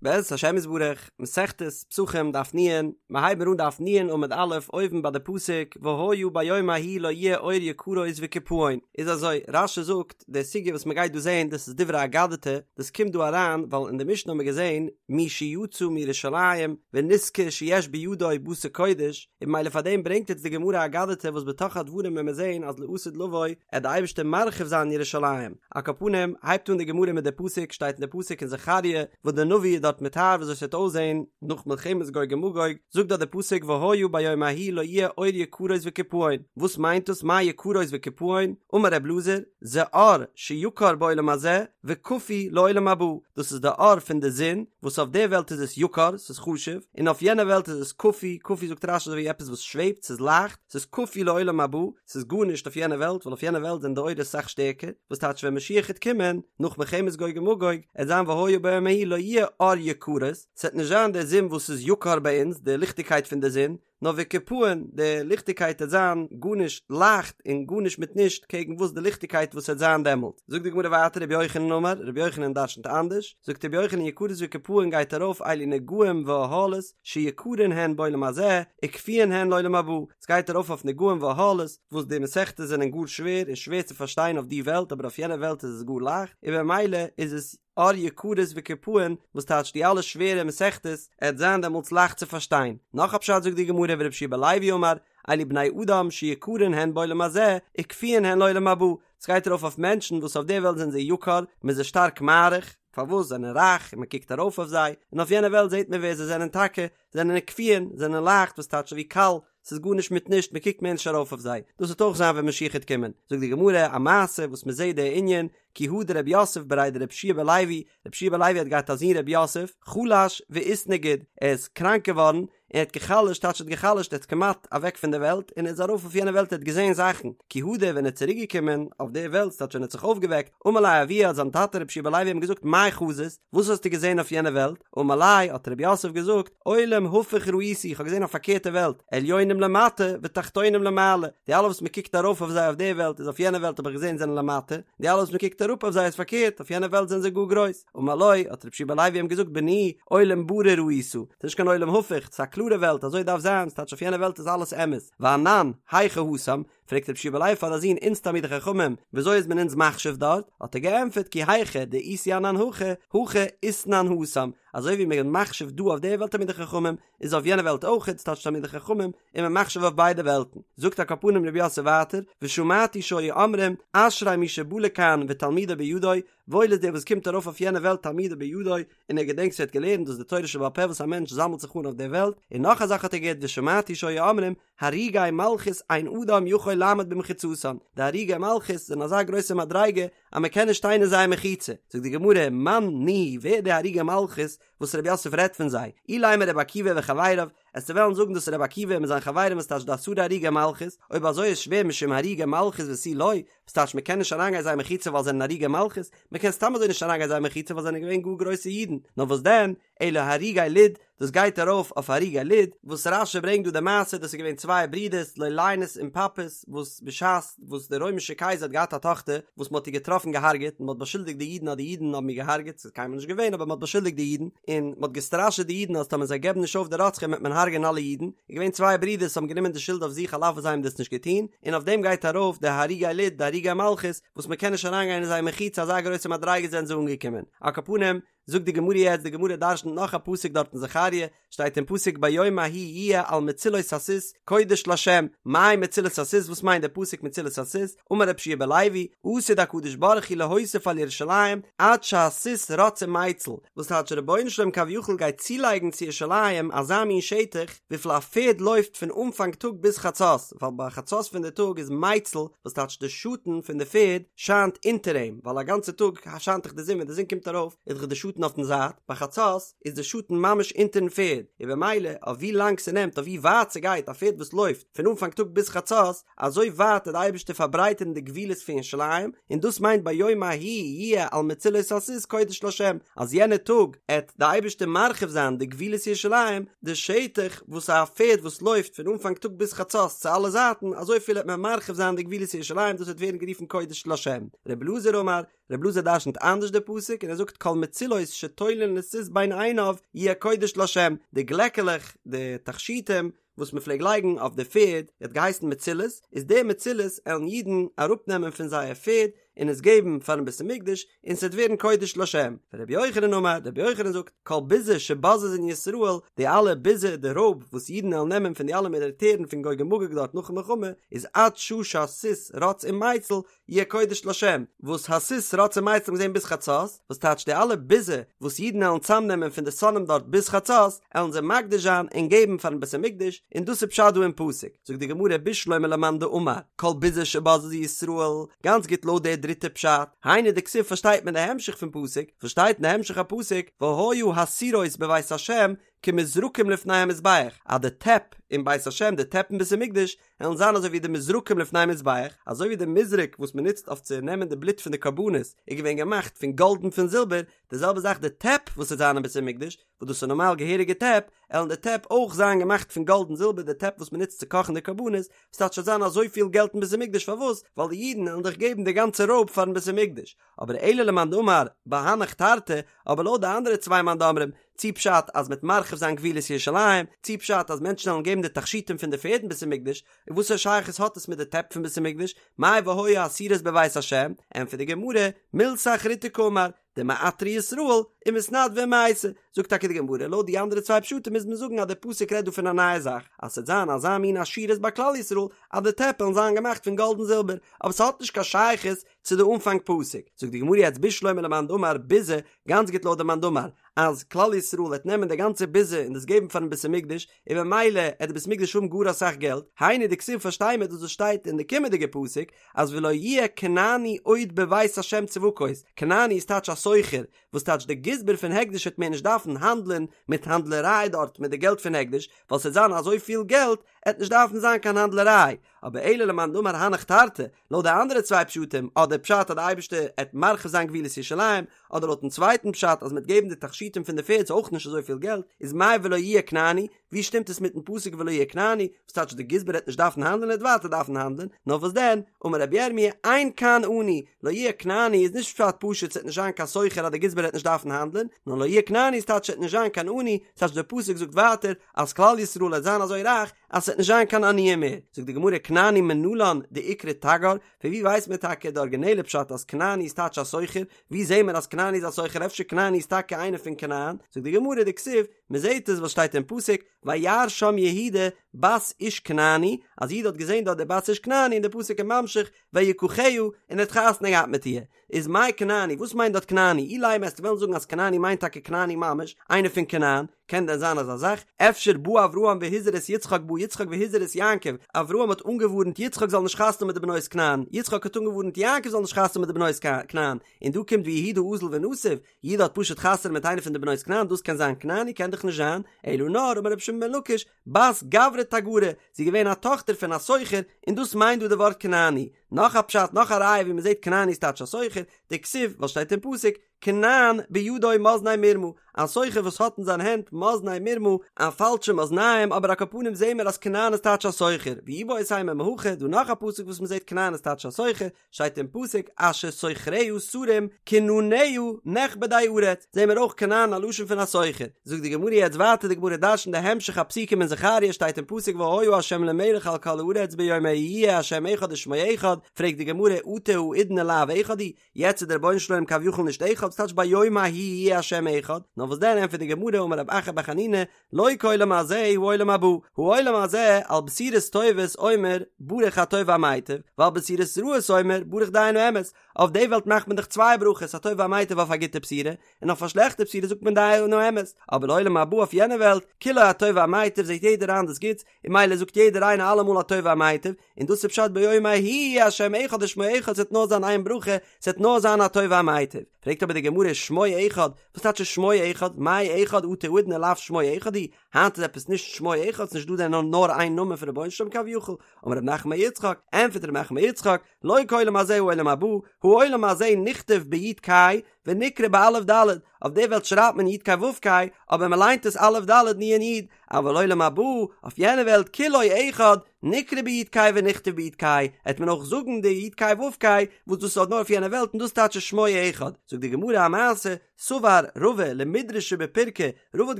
בעזרת השם יתברך, מסכת פסחים דף נ', מיר הייבן אן דף נ' עמוד א', אויבן ביי די פסוק, והיה ביום ההוא לא יהיה אור יקרות וקיפאון, איז אזוי, רש"י זאגט, די סוגיא וואס מען גייט דא זעהן דאס איז דברי אגדתא, דאס קומט דא אריין ווייל אין די משנה האבן מיר געזעהן מי שיצא מירושלים ונזכר שיש בידו בשר קודש, און ממילא פאר דעם ברענגט יעצט די גמרא אגדתא וואס בתוך הדברים וועלן מיר זעהן אז לעתיד לבוא עט די אייבערשטער מרחיב זיין ירושלים, על כל פנים הייבט אן די גמרא מיט די פסוק שטייט אין די פסוק אין זכריה וואס די נביא איז דארט מתאר וויאזוי ס'וועט אויסזעהן נאך מלחמת גוג ומגוג, זאגט דארט די פסוק והיה ביום ההוא לא יהיה אור יקרות וקיפאון, וואס מיינט דאס מאי יקרות וקיפאון, אמר ר' אלעזר, זה אור שיקר בעולם הזה וקפוי לעולם הבא, דאס איז די אור פון די זון וואס אויף די וועלט איז עס יקר, ס'איז חשוב, און אויף יענע וועלט איז עס קפוי, קפוי זאגט רש"י אזוי ווי עפעס וואס שוועבט, ס'איז לייכט, ס'איז קפוי לעולם הבא, ס'איז גארנישט אויף יענע וועלט, ווייל אויף יענע וועלט זענען די אורות אסאך שטערקער, וואס טייטש ווען משיח העט קומען, נאך מלחמת גוג ומגוג, עט זיין והיה ביום ההוא לא יהיה אור יקרות, ס'עט נישט זיין די זון וואס איז יקר ביי אונז, די ליכטיגקייט פון די זון, נאר וקיפאון, די ליכטיגקייט עט זיין גארנישט לייכט און גארנישט מיט נישט קעגן וואס די ליכטיגקייט וואס עט זיין דעמאלט. זאגט די גמרא ווייטער רבי יוחנן אמר, רבי יוחנן דרשנ'ט אנדערש, זאגט רבי יוחנן יקרות וקיפאון גייט ארויף אלו נגעים ואהלות שיקרין הן בעולם הזה וקפויין הן לעולם הבא, ס'גייט ארויף אויף נגעים ואהלות וואס די מסכתות זענען גאר שווער און שווער צו פארשטיין אויף די וועלט אבער אויף יענע וועלט איז עס גאר לייכט און במילא איז עס אור יקרות וקיפאון וואס טייטש די אלע שווערע מסכתות עט זיין דעמאלטס לייכט צו פארשטיין. נאך א פשט זאגט די גמרא ורבי יהושע בן לוי אמר אלו בני אדם שיקרין הן בעולם הזה וקפויין הן לעולם הבא ס'גייט ארויף אויף מענטשן וואס אויף די וועלט זענען זיי יקר מ'איז זיי שטארק מעריך פארוואס זענען רייך און מ'קוקט ארויף אויף זיי און אויף יענע וועלט זעט מען ווער זיי זענען טאקע זענען קפויין זענען לייכט וואס טייטש ווי קל ס'איז גארנישט מיט נישט, מען קוקט מער נישט ארויף אויף זיי, דאס וועט אויך זיין ווען משיח העט קומען, זאגט די גמרא א מעשה וואס מען זעט די ענין, כי הא דרב יוסף בריה דרבי יהושע בן לוי, רבי יהושע בן לוי האט געהאט א זון רב יוסף, חלש ואיתנגיד, ער איז קראנק געווארן, און ער האט גע'חלש'ט, טייטש ער האט גע'חלש'ט, ער איז כמעט אוועק פון די וועלט, און ער איז ארויף אויף יענע וועלט ער האט געזען זאכן, כי הדר ווען ער איז צוריק געקומען אויף די וועלט, ס'טייטש ווען ער האט זיך אויפגעוועקט, אמר ליה אבוה האט זיין טאטע רבי יהושע בן לוי אים געזאגט מאי חזית, וואס האסטו געזען אויף יענע וועלט? אמר ליה, האט רב יוסף געזאגט, עולם הפוך ראיתי, איך האב געזען א פארקערטע וועלט, עליונים למטה ותחתונים למעלה, די אלע וואס מען קוקט ארויף אויף זיי אויף די וועלט איז אויף יענע וועלט האב איך געזען זענען למטה, די אלע וואס מען קוקט אראפ אויף זיי איז פארקערט, אויף יענע וועלט זענען זיי גאר גרויס. אמר לו, האט רבי יהושע בן לוי אים געזאגט, בני, עולם ברור ראית, ס'איז נישט קיין עולם הפוך, ס'איז א קלארע וועלט, אזוי דארף זיין, ס'טייטש אויף יענע וועלט איז אלעס אמת, ואנן, היכי התם, פרעגט רבי יהושע בן לוי פאר די זון אונז תלמידי חכמים וויאזוי איז מען אונז מחשיב דארט, האט ער געענטפערט כי היכי דאיתו אנן הכא, הכי אתנן התם, אזוי ווי מען איז מחשיב דא אויף די וועלט תלמידי חכמים, איז אויף יענע וועלט אויך, ס'טייטש תלמידי חכמים, איז מען מחשיב אויף ביידע וועלטן. זאגט על כל פנים רב יוסף ווייטער, ושמעתי שהיו אומרים, אשרי מי שבא לכאן ותלמודו בידו, וואויל איז דער וואס קומט ארויף אויף יענע וועלט תלמודו בידו, און ער געדענקט וואס ער האט געלערנט, דאס איז די תורה שבעל פה וואס א מענטש זאמלט זיך אן אויף דער וועלט, און נאך א זאך האט ער געהערט ושמעתי שהיו אומרים, הרוגי מלכות אין אדם יכול לעמוד במחיצתן, די הרוגי מלכות זענען אזא גרויסע מדריגה אז מען קען נישט שטיין אין זייער מחיצה, זאגט די גמרא, מאן ניהו, ווער די הרוגי מלכות וואס רב יוסף רעדט פון זיי, אילימא רבי עקיבא וחבריו, עסטו וועלן זאגן דאס איז רבי עקיבא מיט זיין חברים וואס טייטש די עשרה הרוגי מלכות, אויב אזוי איז שווער משום הרוגי מלכות ותו לא, וואס טייטש מען קען נישט אריינגיין זייער מחיצה ווייל זיי זענען הרוגי מלכות, מען קען סתם אזוי נישט אריינגיין זייער מחיצה ווייל זיי זענען געווען גאר גרויסע אידן, נאר וואס דען, אלא הרוגי לוד, דאס גייט ארויף אויף הרוגי לוד, וואס רש"י ברענגט דא די מעשה, דאס איז געווען צוויי ברידערס לוליינוס און פפוס, וואס בשעת וואס דער רוימישער קייזער האט געהאט א טאכטער וואס מען האט איר געטראפן געהארגעט, און מען האט באשולדיגט די אידן אז די אידן האבן איר געהארגעט, ס'איז קיינמאל נישט געווען אבער מען האט באשולדיגט די אידן, און מען האט געסטראשעט די אידן אז טאמער זיי געבן נישט אויף די רוצחים וועט מען הרג'ענען אלע אידן, איז געווען צוויי ברידערס וואס האבן גענומען די שולד אויף זיך על אף וואס זיי האבן דאס נישט געטון, און אויף דעם גייט ארויף די הרוגי לוד, די הרוגי מלכות, וואס מען קען נישט אריינגיין אין זייער מחיצה אזא גרויסע מדריגה זענען זיי אנגעקומען, על כל פנים, זאגט די גמרא יעצט, די גמרא דרשנ'ט נאך א פסוק דארט אין זכריה, שטייט אין פסוק ביום ההוא יהיה על מצילות הסוס קודש לה', מאי מצילות הסוס וואס מיינט די פסוק מצילות הסוס, אמר רבי יהושע בן לוי, עתיד הקדוש ברוך הוא להוסיף על ירושלים עד שהסוס רץ ומציל, וואס טייטש רבונו של עולם כביכול גייט צולייגן צו ירושלים אזא מין שטח וויפיל א פערד לויפט פון אנפאנג טאג ביז חצות, ווייל ביי חצות פון די טאג איז מציל, וואס טייטש די שאטן פון די פערד שיינט אונטער אים, ווייל א גאנצע טאג שיינט דאך די זון ווען די זון קומט ארויף איז דאך די שאטן אויפן זייט, ביי חצות איז די שאטן ממש אונטערן פערד, און במילא אויף ווי לאנג ס'נעמט אויף ווי ווייט ס'גייט א פערד וואס לויפט פון אנפאנג טאג ביז חצות, אזוי ווייט וועט די אייבערשטער פארברייטערן די גבולות פון ירושלים, און דאס מיינט ביום ההוא יהיה על מצילות הסוס קודש לה', אז יענע טאג עט די אייבערשטער מרחיב זיין די גבולות ירושלים, די שטח וואס א פערד וואס לויפט פון אנפאנג טאג ביז חצות צו אלע זייטן, אזויפיל עט מען מרחיב זיין די גבולות ירושלים, דאס וועט ווערן גערופן קודש לה'. רבי אלעזר אמר, רבי אלעזר דרשנ'ט אנדערש די פסוק און ער זאגט כל מצילות מצילות שתולין לסוס בין עיניו יהיה קודש לה', די גלעקעלעך, די תכשיטים, וואס מען פלעג לייגן אויף די פערד, האט געהייסן מצילות, איז די מצילות עלן אידן אראפנעמען פון זייער פערד און עס געבן פארן בית המקדש, און ס'וועט ווערן קודש לשם. ורבי יוחנן אמר, רבי יוחנן זאגט, כל ביזה שבוזזין ישראל, די אלע ביזה, די רויב, וואס אידן עלן נעמען פון די אלע מיליטערן פון גוג ומגוג דארט נאכן מלחמה, איז עד שעה שהסוס רץ ומיצל, יהיה קודש לשם, וואס הסוס רץ ומיצל האט מען געזען ביז חצות, וואס טייטש די אלע ביזה וואס אידן עלן צאמנעמען פון די שונאים דארט ביז חצות, עלן זיי מקדיש זיין און געבן פארן בית המקדש, און דאס איז פשט דא אין פסוק, זאגט די גמרא בשלמא למאן דאמר, כל ביזה שבזזו ישראל, גאנץ גוט לויט די דריטע פשט, היינו דכתיב פארשטייט מען די המשך פון פסוק, וואס שטייט אין די המשך הפסוק, והיה הסירות בבית השם כמזרקים לפני המזבח, אז די טעפ אין בית השם, די טעפ אין בית המקדש, וועלן זיין אזוי ווי די מזרקים לפני המזבח, אזוי ווי די מזרק וואס מען נוצט אויף צו נעמען די בלוט פון די קרבנות איז געווען געמאכט פון גאלד און פון זילבער, די זעלבע זאך די טעפ וואס וועט זיין אין בית המקדש, וואס דאס איז נארמאל געהעריגע טעפ, עלן די טעפ אויך זיין געמאכט פון גאלד און זילבער, די טעפ וואס מען נוצט צו קאכן די קרבנות, וואס טייטש ס'וועט זיין אזויפיל געלט אין בית המקדש פארוואס? ווייל די אידן עלן דאך געבן די גאנצע רויב פארן בית המקדש. אבער אלא למאן דאמר בהנך תרתי, אבער לויט די אנדערע צוויי מאן דאמרים, צי פשט אז מ'עט מרחיב זיין גבולות ירושלים, צי פשט אז מענטשן וועלן געבן די תכשיטים פון די פערד אין בית המקדש, און וואסערע שייכות האט עס מיט די טעפ פון בית המקדש, מאי והיה הסירות בבית השם, ענטפערט די גמרא, מילתא אחריתי קאמר, דמעטרי ישראל ומתנדבי ומייתי, זאגט טאקע די גמרא, לויט די אנדערע צוויי פשטים מוז מען זאגן אז דער פסוק רעדט דא פון א נייע זאך, אז ס'וועט זיין אזא מין עשירות ביי כלל ישראל אז די טעפ וועלן זיין געמאכט פון גאלד און זילבער, אבער ס'האט נישט קיין שייכות צו די אנפאנג פסוק, זאגט די גמרא יעצט בשלמא למאן דאמר ביזה, גאנץ גוט לויט די מאן דאמר, אז כלל ישראל וועט נעמען די גאנצע ביזה און דאס געבן פארן בית המקדש, און במילא עט די בית המקדש האבן גאר אסאך געלט, היינו דכתיב פארשטיי מיר דאס וואס שטייט אין די קומענדיגע פסוק, אז ולא יהיה כנעני עוד בבית השם צבקות, כנעני איז טייטש א סוחר, וואס טייטש די גזבר פון הקדש וועט מער נישט דארפן האנדלען מיט האנדלעריי דארט מיט די געלט פון הקדש, ווייל ס'עט זיין אזויפיל געלט, עט נישט דארפן זיין קיין האנדלעריי, אבער אלא למאן דאמר הנך תרתי, לויט די אנדערע צוויי פשטים, אדער פשט אז די אייבערשטער עט מרחיב זיין גבולות ירושלים, אדער לויטן צווייטן פשט אז מ'עט געבן די תכשיטים פון די פערד איז אויך נישט אזויפיל געלט, איז מאי ולא יהיה כנעני, ווי שטימט עס מיטן פסוק ולא יהיה כנעני, וואס טייטש די גזבר עט נישט דארפן האנדלען ער עט ווייטער דארפן האנדלען, נאר וואס דען, אמר רבי ירמי' אין כאן עני, לא יהיה כנעני איז נישט פשט פשוט ס'עט נישט זיין קיין סוחר אז די גזבר עט נישט דארפן האנדלען, נאר לא יהיה כנעני איז טייטש ס'עט נישט זיין קיין עני, ס'טייטש דער פסוק זאגט ווייטער אז כלל ישראל עט זיין אזוי רייך אז ס'וועט נישט זיין קיין עניים מער, זאגט די גמרא כנעני מנלן דאיקרי תגר, פון ווי ווייסט מען טאקע די ארגינעלע פשט אז כנעני איז טייטש א סוחר, ווי זעהן מיר אז כנעני איז א סוחר אפשר כנעני איז טאקע איינער פון כנען, זאגט די גמרא דכתיב, מען זעהט עס וואס שטייט אין פסוק, וירא שם יהודה בת איש כנעני, אז יהודה האט געזעהן דארט די בת איש כנעני און די פסוק איז ממשיך ויקחה און ער האט חתונה געהאט מיט איר, איז מאי כנעני, וואס מיינט דארט כנעני? אילימא וועסטו וועלן זאגן אז כנעני מיינט טאקע כנעני ממש, איינער פון כנען, קען דען זיין אזא זאך? אפשר בא אברהם והזהיר את יצחק בא יצחק והזהיר את יעקב, אברהם האט אנגעווארנט יצחק זאל נישט חתונה האבן מיט די בנות כנען, יצחק האט אנגעווארנט יעקב זאל נישט חתונה האבן מיט די בנות כנען, און דא קומט ויהודה אזיל ונסיב, יהודה האט פשוט חתונה מיט איינע פון די בנות כנען, דאס קען זיין כנעני? קען דאך נישט זיין, אלא נאר אמר רבי שמעון בן לקיש, בת גברא תגרא, זי איז געווען א טאכטער פון א סוחר, און דאס מיינט דא די ווארט כנעני. נאך א פשט, נאך א ראיה ווי מען זעט כנעני איז טייטש א סוחר, דכתיב, וואס שטייט אין פסוק, כנען בידו מאזני מרמה, א סוחר וואס האט אין זיין הענט מאזני מרמה, א פאלשע מאזניים, אבער על כל פנים זעהן מיר אז כנען איז טייטש א סוחר, ואיבעית אימא מהכא, דא נאך א פסוק וואס מען זעט כנען איז טייטש א סוחר, שטייט אין פסוק אשר סוחריה שרים כנעניה נכבדי ארץ, זעהן מיר אויך כנען א לשון פון א סוחר, זאגט די גמרא יעצט ווייטער די גמרא דרש'נט די המשך הפסוקים אין זכריה שטייט אין פסוק והיה ה' למלך על כל הארץ ביום ההוא יהיה ה' אחד ושמו אחד, פרעגט די גמרא אטו האידנא לאו אחד הוא, יעצט איז דער רבונו של עולם כביכול נישט אחד, ס'טייטש ביום ההוא יהיה ה' אחד, נאר וואס דען ענטפערט די גמרא אמר רב אחא בר חנינא לא כעולם הזה העולם הבא, העולם הזה על בשורות טובות אומר ברוך הטוב והמיטיב, ועל בשורות רעות אומר ברוך דיין האמת, אויף די וועלט מאכט מען דאך צוויי ברכות הטוב והמיטיב אויף א גוטע בשורה, און אויף א שלעכטע בשורה זאגט מען דיין האמת, אבער לעולם הבא אויף יענע וועלט, כולו הטוב והמיטיב זעט יעדער איין דאס גוטס, און ממילא זאגט יעדער איינער אלעמאל הטוב והמיטיב, און דאס איז פשט ביום ההוא יהיה השם אחד ושמו אחד ס'וועט נאר זיין איין ברכה, ס'וועט נאר זיין הטוב והמיטיב. פרעגט אבער די גמרא שמו אחד, וואס טייטש שמו אחד, מאי אחד אטו האידנא לאו שמו אחד הוא, היינט איז עפעס נישט שמו אחד, ס'נישט דא דען נאר איין נאמען פון רבונו של עולם כביכול, אמר רב נחמן בר יצחק, ענטפערט רב נחמן בר יצחק, לא כעולם הזה העולם הבא, העולם הזה נכתב ביו"ד ק"י. ונקרא באלף ד', אויף די וועלט שרייבט מען י' ק' ו' ק', אבער מען ליינט עס אלף ד' נ' י', אבל עולם הבא, אויף יענע וועלט כולו אחד, נקרא בי' ק' ונכתב בי' ק', העט מען אויך זאגן די י' ק' ו' ק', וואס דאס איז נאר אויף יענע וועלט און דאס טייטש שמו אחד. זאגט די גמרא א מעשה, סבר רבא למידרשא בפירקא, רבא האט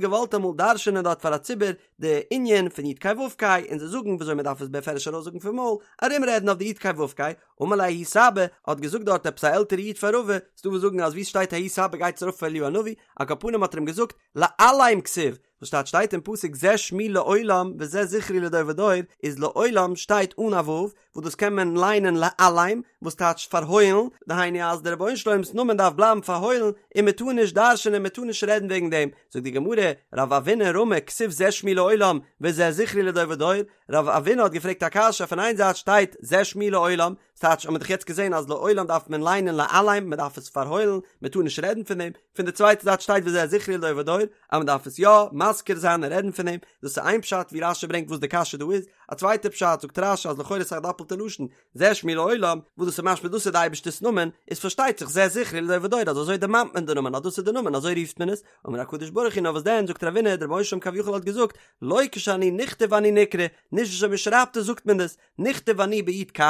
געוואלט אמאל דרש'ענען דארט פאר א ציבור די ענין פון י' ק' ו' ק', און זיי זאגן וויאזוי מען דארף עס בפירוש ארויסזאגן פון מויל, ארומרעדן אויף די י' ק' ו' ק', אמר ליה ההוא סבא, האט געזאגט דארט עפעס א עלטערע איד פאר רבא, ס'דא וואס זאגן אז וואו ס'שטייט ההוא סבא גייט עס ארויף אויף אליהו הנביא, על כל פנים האט ער אים געזאגט, לעלם כתיב, וואס שטייט שטייט אין פסוק זה שמי לעולם וזה זכרי לדור ודור, איז לעולם שטייט אן א ו', וואס דאס קען מען ליינען לעלם, וואס טייטשט פארהוילן, דהיינו אז דער רבונו של עולם'ס נאמען דארף בלייבן פארהוילן, און מען טאר נישט דרש'ענען מען טאר נישט רעדן וועגן דעם, זאגט די גמרא, רב אבינא רמי כתיב זה שמי לעולם וזה זכרי לדור ודור, רב אבינא האט געפרעגט א קשיא, פון איין זייט שטייט זה שמי לעולם, ס'טייטש האט מען דאך יעצט געזען אז לעולם דארף מען ליינען לעלם, מען דארף עס פארהוילן, מען טאר נישט רעדן פון דעם, פון די צווייטע זייט שטייט וזה זכרי לדור ודור, אז מען דארף עס יא מזכיר זיין און רעדן פון דעם, דאס איז איין פשט ווי רשי ברענגט וואס די קשיא דא איז, א צווייטע פשט זאגט רשי אז לכאורה איז א דאפלטע לשון, זה שמי לעולם, וואס דאס איז משמע דאס איז די אייבערשטער'ס נאמען, איז פארשטייט זיך זה זכרי לדור ודור אז אזוי דערמאנט מען די נאמען אז דאס איז די נאמען אזוי רופט מען עס, אמר הקדוש ברוך הוא נאר וואס דען זאגט רב אבינא דער רבונו של עולם כביכול האט געזאגט, לא כשאני נכתב אני נקרא, נישט וויאזוי מען שרייבט עס זאגט מען דאס, נכתב אני בי' ק'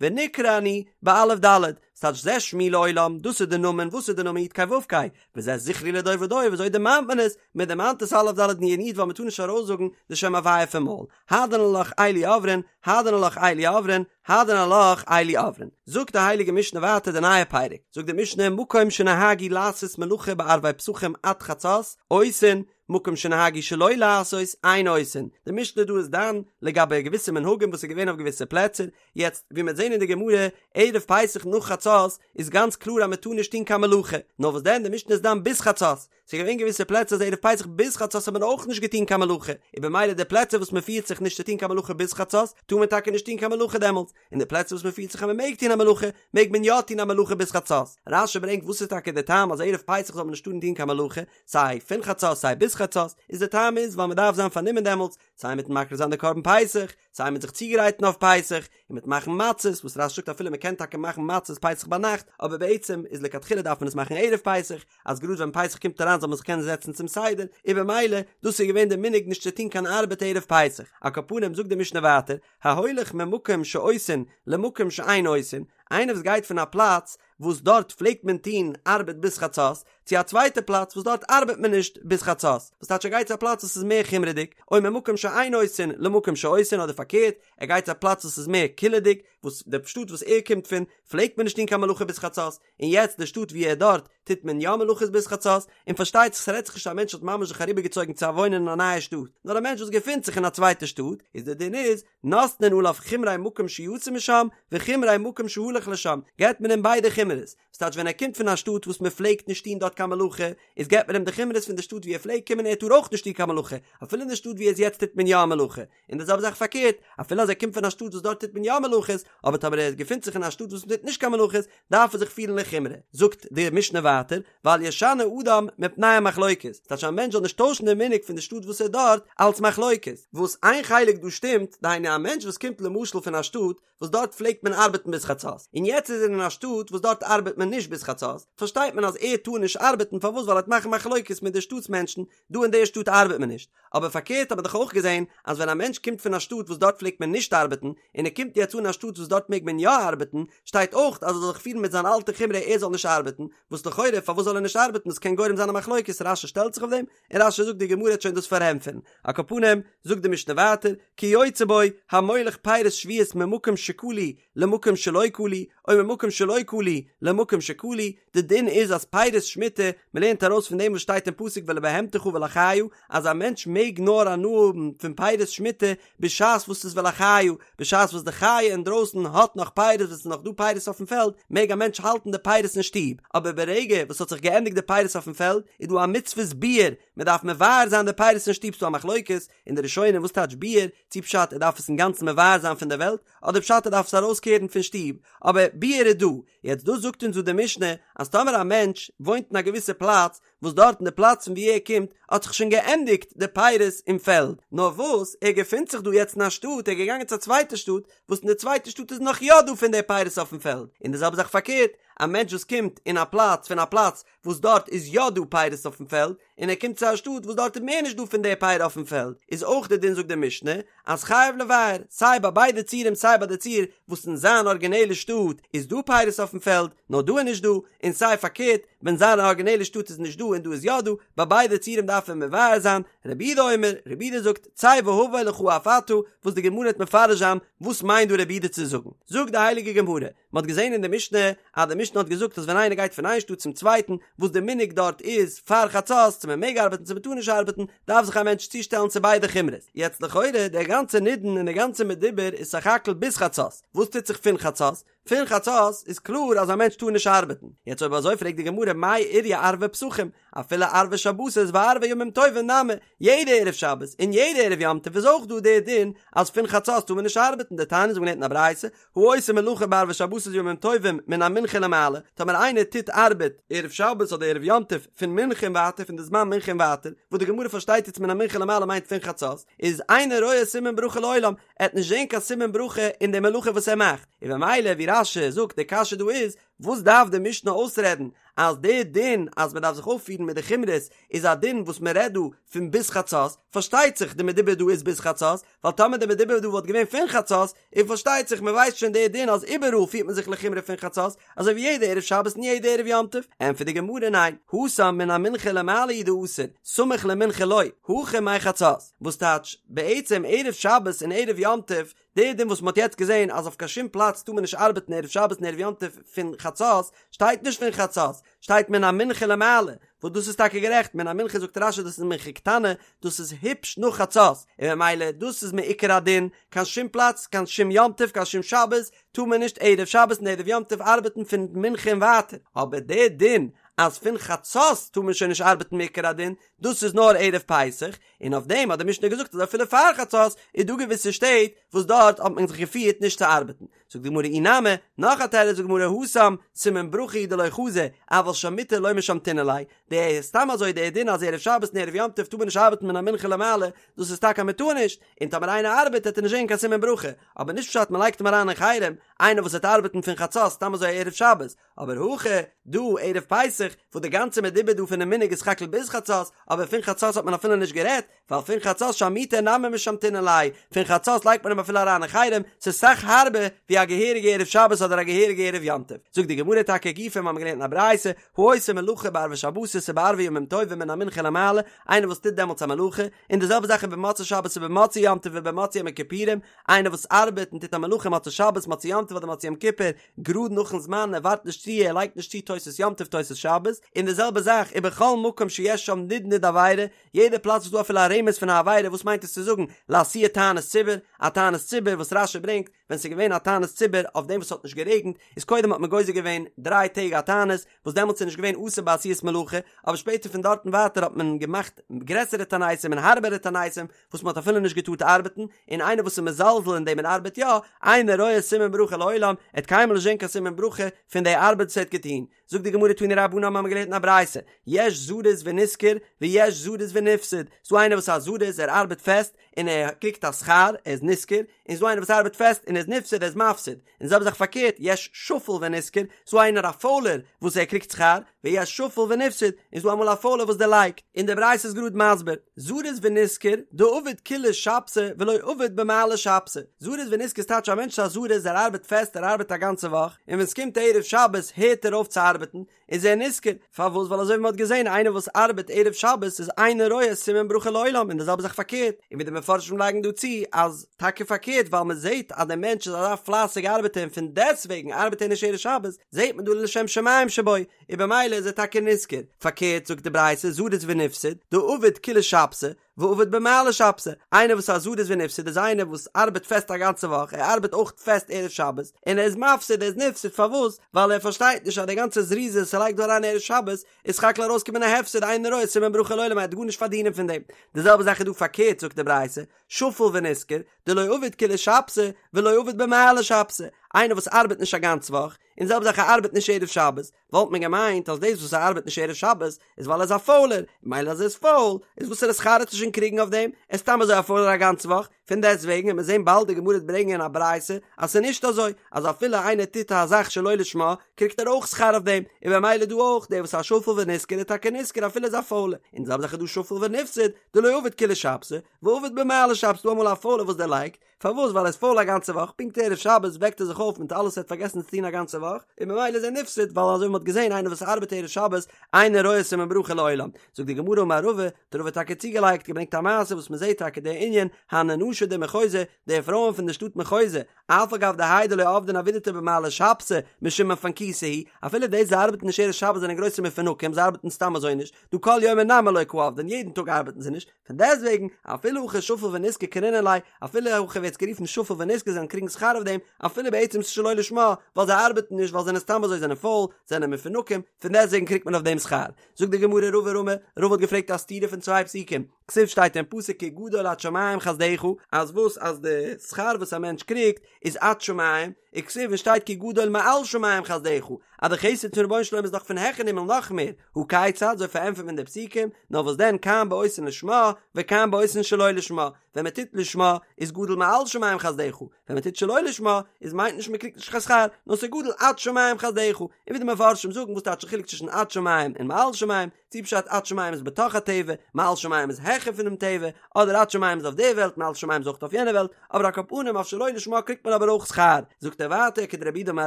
ונקרא אני באלף ד', ס'טייטש זה שמי לעולם, דאס איז די נאמען, וואס איז די נאמען י' ק' ו' ק', וזה זכרי לדור ודור, וויאזוי דערמאנט מען עס? מען דערמאנט עס אלף ד' נ' י' ווייל מען טאר נישט ארויסזאגן די שם הוויה פון מויל, הדרן עלך אלו עוברין, הדרן עלך אלו עוברין, הדרן עלך אלו עוברין. זאגט די הייליגע משנה ווייטער די נייע פרק, זאגט די משנה מקום שנהגו לעשות מלאכה בערבי פסחים עד חצות, עושין, מקום שנהגו שלא לעשות אין עושין, די משנה דא איז דן לגבי געוויסע מנהגים וואס איז געווען אויף געוויסע פלעצער, יעצט ווי מ'וועט זען אין די גמרא ערב פסח נאך חצות איז גאנץ קלאר אז מ'טאר נישט טון קיין מלאכה, נאר וואס דען די משנה איז דן ביז חצות, ס'איז געווען געוויסע פלעצער אז ערב פסח ביז חצות האט מען אויך נישט געטון קיין מלאכה, און במילא די פלעצער וואס מ'פירט זיך נישט צו טון קיין מלאכה ביז חצות טאר מען טאקע נישט טון קיין מלאכה דעמאלטס, און די פלעצער וואס מ'פירט זיך אז מ'מעג טון א מלאכה מעג מען יא טון א מלאכה ביז חצות. רש"י ברענגט וואס איז טאקע די טעם אז ערב פסח זאל מען נישט טארן טון קיין מלאכה, סיי פון חצות סיי ביז חצות, איז די טעם איז ווייל מען דארף זיין פארנומען דעמאלטס, סיי מיטן מקריב זיין די קרבן פסח, סיי מיט זיך צוגרייטן אויף פסח, און מיט מאכן מצות, וואס רש"י זאגט אפילו מען קען טאקע מאכן מצות פסח ביינאכט, אבער בעצם איז לכתחילה דארף מען עס מאכן ערב פסח, אז גראד ווען פסח קומט אריין זאל מען זיך קענען זעצן צום סדר, און במילא דאס איז געווען די מנהג נישט צו טון קיין ארבעט ערב פסח. על כל פנים זאגט די משנה ווייטער, ההולך ממקום שעושין למקום שאין עושין, איינער וואס גייט פון א פלאץ וואס דארט פלעגט מען טון ארבעט ביז חצות, צו א צווייטע פלאץ וואס דארט ארבעט מען נישט ביז חצות, וואס טייטש ער גייט צו א פלאץ וואס איז מער חומרה'דיג, או ממקום שאין עושין למקום שעושין אדער פארקערט, ער גייט צו א פלאץ וואס איז מער קולא'דיג, וואס די שטאט וואס ער קומט פון פלעגט מען נישט טון קיין מלאכה ביז חצות, און יעצט די שטאט ווי ער דארט טוט מען יא מלאכות ביז חצות, און פארשטייט זיך ס'רעדט זיך נישט א מענטש האט ממש זיך אריבערגעצויגן צו וואוינען אין א נייע שטאט, נאר א מענטש וואס געפינט זיך אין א צווייטע שטאט, איז די דין איז, נותנין עליו חומרי מקום שיצא משם, וחומרי מקום שהלך לשם, געבט מען אים ביידע חומרות, ס'טייטש ווען ער קומט פון א שטאט וואס מען פלעגט נישט טון דארט קיין מלאכה, איז געבט מען אים די חומרות פון די שטאט ווי ער פלעגט קומען ער טאר אויך נישט טון קיין מלאכה, אפילו אין די שטאט ווי ער איז יעצט טוט מען יא א מלאכה, און די זעלבע זאך פארקערט, אפילו אז ער קומט פון א שטאט וואס דארט טוט מען יא מלאכות, אבער טאמער ער געפינט זיך אין א שטאט וואס מען טוט נישט קיין מלאכות, דארף ער זיך פירן לחומרא. זאגט די משנה ווייטער, ואל ישנה אדם מפני המחלוקת, ס'טייטש א מענטש זאל נישט טוישן די מנהג פון די שטאט וואס ער איז דארט, אלס מחלוקת, וואס איין חלק דא שטימט, דהיינו א מענטש וואס קומט למשל פון א שטאט וואס דארט פלעגט מען ארבעטן ביז חצות, און יעצט איז ער אין א שטאט וואס דארט ארבעט מען נישט ביז חצות, פארשטייט מען אז ער טאר נישט ארבעטן, פארוואס ווייל ער וועט מאכן מחלוקת מיט די שטאט'ס מענטשן, דא אין די שטאט ארבעט מען נישט. אבער פארקערט האט מען דאך אויך געזען אז ווען א מענטש קומט פון א שטאט וואס דארט פלעגט מען נישט ארבעטן, און ער קומט יעצט אן אין א שטאט וואס דארט מעג מען יא ארבעטן, שטייט אויך אז ער זאל זיך פירן מיט זיין אלטע חומרא ער זאל נישט ארבעטן, וואס לכאורה פארוואס זאל ער נישט ארבעטן דאס קען גורם זיין א מחלוקת, רש"י שטעלט זיך אויף דעם, און רש"י זאגט די גמרא וועט שוין דאס פארענטפערן. על כל פנים, זאגט די משנה ווייטער, כיוצא בו, המוליך פירות שביעית ממקום שכלו למקום שלא כלו, או ממקום שלא כלו למקום שכלו, די דין איז אז פירות שמיטה, מען לערנט ארויס פון דעם וואס שטייט אין פסוק ולבהמתך ולחיה, אז א מענטש מעג נאר הנאה האבן פון פירות שמיטה בשעת וואס ס'איז ולחיה, בשעת וואס די חיה אינדרויסן האט נאך פירות וואס ס'איז נאך דא פירות אויפן פעלד, מעג א מענטש האלטן די פירות אין שטוב, אבער ברגע וואס ס'האט זיך געענדיגט די פירות אויפן פעלד, איז דא א מצוות ביעור, מען דארף מבער זיין די פירות אין שטוב, ס'דא א מחלוקת אין די ראשונים וואס טייטש ביעור, צו פשט ער דארף עס אינגאנצן מבער זיין פון דער וועלט, אדער פשט ער דארף עס ארויסקערן פון שטוב, אבער ביעור איז דא, יעצט דאס זאגט אונז דא די משנה אז טאמער א מענטש וואוינט אין א געוויסע פלאץ וואס דארט אין די פלאץ פון ווי ער קומט האט זיך שוין געענדיגט די פירות אין פעלד, נאר וואס ער געפינט זיך דא יעצט אין א שטאט, ער איז געגאנגען צו א צווייטע שטאט וואס אין די צווייטע שטאט איז נאך יא דא פון די פירות אויפן פעלד, און די זעלבע זאך פארקערט, א מענטש וואס קומט אין א פלאץ פון א פלאץ וואס דארט איז יא דא פירות אויפן פעלד, און ער קומט צו א שטאט וואס דארט איז מער נישט דא פון די פירות אויפן פעלד, איז אויך די דין זאגט די משנה אז חייב לבער, סיי ביי ביידע ציורים סיי ביי די ציור וואס אין זיין ארגינעלע שטאט איז דא פירות אויפן פעלד נאר דא איז נישט דא, און סיי פארקערט ווען זיין ארגינעלע שטאט איז נישט דא און דא איז יא דא, ביי ביידע ציורים דארף מען מבער זיין, רבי יהודה אומר, רבי יהודה זאגט, צא והבא לך אף אתה, וואס די גמרא וועט מפרש זיין וואס מיינט דא רבי יהודה צו זאגן, זאגט די הייליגע גמרא, מען האט געזען אין די משנה אז די משנה האט געזאגט אז ווען איינער גייט פון איין שטאט צום צווייטן וואס די מנהג דארט איז פאר חצות צו מען מעג ארבעטן צו מען טאר נישט ארבעטן דארף זיך א מענטש צושטעלן צו ביידע חומרות יעצט לכאורה דער גאנצער נידון און דער גאנצער מדובר איז סך הכל ביז חצות וואס טוט זיך פון חצות? פון חצות איז קלאר אז א מענטש טאר נישט ארבעטן יעצט אויב אזוי פרעגט די גמרא מאי איריא ערבי פסחים אפילו ערבי שבתות וערבי ימים טובים נמי, יעדע ערב שבת און יעדע ערב יום טוב איז אויך דא דער דין אז פון חצות טאר מען נישט ארבעטן, דתניא אזוי ווי מ'האט געלערנט אין א ברייתא, העושה מלאכה בערבי שבתות וימים טובים מן המנחה ולמעלה, טאמער איינער טוט ארבעט ערב שבת אדער ערב יום טוב פון מנחה און ווייטער פון די זמן מנחה און ווייטער, וואס די גמרא פארשטייט יעצט מן המנחה ולמעלה מיינט פון חצות, איז אינו רואה סימן ברכה לעולם, ער וועט נישט זען קיין סימן ברכה אין די מלאכה וואס ער מאכט, און במילא ווי רש"י זאגט די קשיא דא איז, וואס דארף די משנה אויסרעדן אז די דין אז מען דארף זיך אויפפירן מיט די חומרות איז א דין וואס מען רעדט דא פון ביז חצות, פארשטייט זיך די מדובר דא איז ביז חצות, ווייל טאמער די מדובר דא וואלט געווען פון חצות, איז פארשטייט זיך מען ווייסט שוין די דין אז איבעראל פירט מען זיך לחומרא פון חצות, אזוי ווי יעדע ערב שבת און יעדע ערב יום טוב, ענטפערט די גמרא ניין, התם מן המנחה ולמעלה הוא דאסור, סמוך למנחה לא, הכא מחצות, וואס טייטש בעצם ערב שבת און ערב יום טוב די דין וואס מ'האט יעצט געזען אז אויף קיין שום פלאץ טאר מען נישט ארבעטן ערב שבת און ערב יום טוב פון חצות, שטייט נישט פון חצות, שטייט מן המנחה למעלה, וואס דאס איז טאקע גערעכט, מן המנחה זאגט רש"י דאס איז מנחה קטנה, דאס איז היפש נאך חצות, און ממילא דאס איז מעיקר הדין, קיין שום פלאץ, קיין שום יום טוב, קיין שום שבת, טאר מען נישט ערב שבת און ערב יום טוב ארבעטן פון מנחה און ווייטער, אבער די דין אז פון חצות טאר מען שוין נישט ארבעטן מעיקר הדין, דאס איז נאר ערב פסח, און אויף דעם האט די משנה געזאגט אז אפילו פאר חצות איז דא געוויסע שטעט וואס דארט האט מען זיך געפירט נישט צו ארבעטן. זאגט די גמרא אי נמי, נאך א תירוץ זאגט די גמרא התם, סימן ברכה הוא דלא חזי, אבל שמותי לא משמתינן ליה, די סתם אזוי די דין אז ערב שבת און ערב יום טוב טאר מען נישט ארבעטן מן המנחה למעלה, דאס איזטאקע אז מען טאר נישט, און טאמער איינער ארבעט וועט ער נישט זען קיין סימן ברכה, אבער נישט פשט מען לייגט אים אריין אין חרם, איינער וואס וועט ארבעטן פון חצות סתם אזוי ערב שבת, אבער הכא דא ערב פסח וואס די גאנצע מדובר דא פונעם מנהג איז סך הכל ביז חצות, אבער פון חצות האט מען אפילו נישט גערעדט, ווייל פון חצות שמותי נמי משמתינן ליה, פון חצות לייגט מען אים אפילו אריין אין חרם, ס'איז סאך הארבער ווי א געהעריגע ערב שבת אדער א געהעריגע ערב יום טוב. זאגט די גמרא טאקע גופא מ'האמיר געלערנט אין א ברייתא, העושה מלאכה בערבי שבתות ובערבי ימים טובים מן המנחה ולמעלה, איינער וואס טוט דעמאלטס א מלאכה, און די זעלבע זאך איז במוצאי שבת ובמוצאי יום טוב ובמוצאי יום הכיפורים, איינער וואס ארבעט און טוט א מלאכה מוצאי שבת מוצאי יום טוב אדער מוצאי יום כיפור, גראד נאכן זמן ער ווארט נישט צו ער לייגט נישט צו תוס' יום טוב תוס' שבת, און די זעלבע זאך ובכל מקום שיש שם נדנוד עבירה, יעדע פלאץ וואס דא אפילו א רמז פון א עבירה וואס מיינט עס צו זאגן לאתויי תענית ציבור, א תענית ציבור וואס רש"י ברענגט ווען ס'איז געווען א תענית ציבור אויף דעם וואס ס'האט נישט גערעגנט איז קודם האט מען גוזר געווען דריי טעג א תענית וואס דעמאלטס איז נישט געווען אסור בעשיית מלאכה אבער שפעטער פון דארטן ווייטער האט מען געמאכט גרעסערע תעניתים און הארבערע תעניתים וואס מען האט אפילו נישט געטארט ארבעטן, און איינער וואס איז מזלזל אין דעם און ארבעט יא, אינו רואה סימן ברכה לעולם, ער וועט קיינמאל נישט זען קיין סימן ברכה פון די ארבעט וואס ער האט געטון. זאגט די גמרא תנו רבנן מ'האמיר געלערנט אין א ברייתא, יש זריז ונשכר, ויש זריז ונפסד, ס'דא איינער וואס איז א זריז, ער ארבעט פעסט, און ער קריגט א שכר, ער איז נשכר, און ס'דא איינער וואס ארבעט פעסט און ער איז נפסד, ער איז מפסיד. און זעלבע זאך פארקערט, יש שפל ונשכר, ס'דא איינער א פוילער וואס ער קריגט שכר, ויש שפל ונפסד, און ס'דא אמאל א פוילער וואס דערלייגט. און די ברייתא איז גראד מסביר, זריז ונשכר, דעביד כוליה שבתא ולא עביד במעלי שבתא. זריז ונשכר איז טייטש א מענטש איז א זריז, ער ארבעט פעסט, ער ארבעט א גאנצע וואך, און ווען ס'קומט ערב שבת הערט ער אויף צו ארבעטן, איז ער נשכר, פארוואס? ווייל אזוי ווי מען האט געזען איינער וואס ארבעט ערב שבת איז אינו רואה סימן ברכה לעולם און די זעלבע זאך פארקערט, און ווי די מפרשים לייגן דא צו אז טאקע פארקערט ווייל מען זעט אז דער מענטש איז אזא פלייסיגע ארבעטער און פון דעסטוועגן ארבעט ער נישט ערב שבת, זעט מען דא לשם שמים שבו, און במילא איז ער טאקע נשכר, פארקערט זאגט די ברייתא זריז ונפסד, דעביד כוליה שבתא, ועביד במעלי שבתא, איינער וואס איז א זריז ונפסד איז איינער וואס ארבעט פעסט א גאנצע וואך, ער ארבעט אויך פעסט ערב שבת, און ער איז מפסיד, ער איז נפסד, פארוואס? ווייל ער פארשטייט נישט אז די גאנצע זריזות וואס ער לייגט דא אריין ערב שבת, איז סך הכל ארויסקומען א הפסד אינו רואה סימן ברכה לעולם ער וועט גארנישט פארדינען פון דעם. די זעלבע זאך איז דא פארקערט זאגט די ברייתא, שפל ונשכר, דלא עביד כוליה שבתא, ולא עביד במעלי שבתא. איינער וואס ארבעט נישט א גאנץ וואך, און זעלבע זאך ער ארבעט נישט ערב שבת, וואלט מען געמיינט אז דאס וואס ער ארבעט נישט ערב שבת איז ווייל ער איז א פוילער, מילא אז ער איז פויל, איז וואסערע שכר וועט ער שוין קריגן אויף דעם, ער איז סתם אזוי א פוילער א גאנץ וואך, פון דעסט וועגן וועט מען זען באלד די גמרא וועט ברענגען א ברייתא אז ס'איז נישט אזוי, אז אפילו איינער טוט א זאך שלא לשמה קריגט ער אויך שכר אויף דעם, און במילא דא אויך, דער וואס איז א שפל ונשכר איז טאקע נשכר אפילו ער איז א פוילער, און די זעלבע זאך איז דא שפל ונפסד, דלא עביד כולה שבתא, ועביד במעלי שבתא, ס'דא אמאל א פוילער וואס דערלייגט, פארוואס? ווייל ער איז פויל א גאנצע וואך, פונקט ערב שבת וועקט ער זיך אויף מיט אלעס ער האט פארגעסן צו טון א גאנצע וואך, און ממילא איז ער נפסד, ווייל אזוי ווי מ'האט געזען איינער וואס ארבעט ערב שבת אינו רואה סימן ברכה לעולם. זאגט די גמרא אמר רבא, האט רבא טאקע צוגעלייגט, געברענגט א מעשה וואס מ'זעט טאקע די ענין, הני נשי דמחוזא, די פרויען פון די שטאט מחוזא, אף על גב דהאי דלא עבדן עבידתא במעלי שבתא, משום מפנקותא הוא, אפילו די זיי ארבעטן נישט ערב שבת זענען גרויסע מפונקים, זיי ארבעטן סתם אזוי נישט, דהא כל יומא נמי לא קא עבדן, יעדן טאג ארבעטן זיי נישט, פון דעסטוועגן, אפילו הכי שפל ונשכר קרינן ליה, אפילו הכי ווערט עס גערופן שפל ונשכר זיי וועלן קריגן שכר אויף דעם, אפילו בעצם ס'איז שלא לשמה, ווייל זיי ארבעטן נישט ווייל זיי זענען סתם אזוי זענען פויל, זענען מפונקים, פון דעסטוועגן קריגט מען אויף דעם שכר. זאגט די גמרא רבא רמי, רבא האט געפרעגט א סתירה פון צוויי פסוקים, כתיב שטייט אין פסוק כי גדול עד שמים חסדך, אז וואס אז די שכר וואס א מענטש קריגט איז עד שמים, וכתיב און שטייט כי גדול מעל שמים חסדך, אז די חסד פון רבונו של עולם איז דאך פון העכערן הימל נאך מער, הא כיצד, אזוי פארענטפערט מען די פסוקים, נאר וואס דען כאן בעושין לשמה, וכאן בעושין שלא לשמה, ווען מען טוט לשמה איז גדול מעל שמים חסדך, ווען מען טוט שלא לשמה איז מיינט נישט מען קריגט נישט קיין שכר, נאר ס'איז גדול עד שמים חסדך, און ווי די מפרשים זאגן וואס טייטש די חילוק צווישן עד שמים און מעל שמים, צי פשט עד שמים איז בתוך הטבע, מעל שמים איז העכער פונעם טבע, אדער עד שמים איז אויף די וועלט, מעל שמים איז אויך אויף יענע וועלט, אבער על כל פנים אויף שלא לשמה קריגט מען אבער אויך שכר. זאגט ער ווייטער כדרב יהודה אמר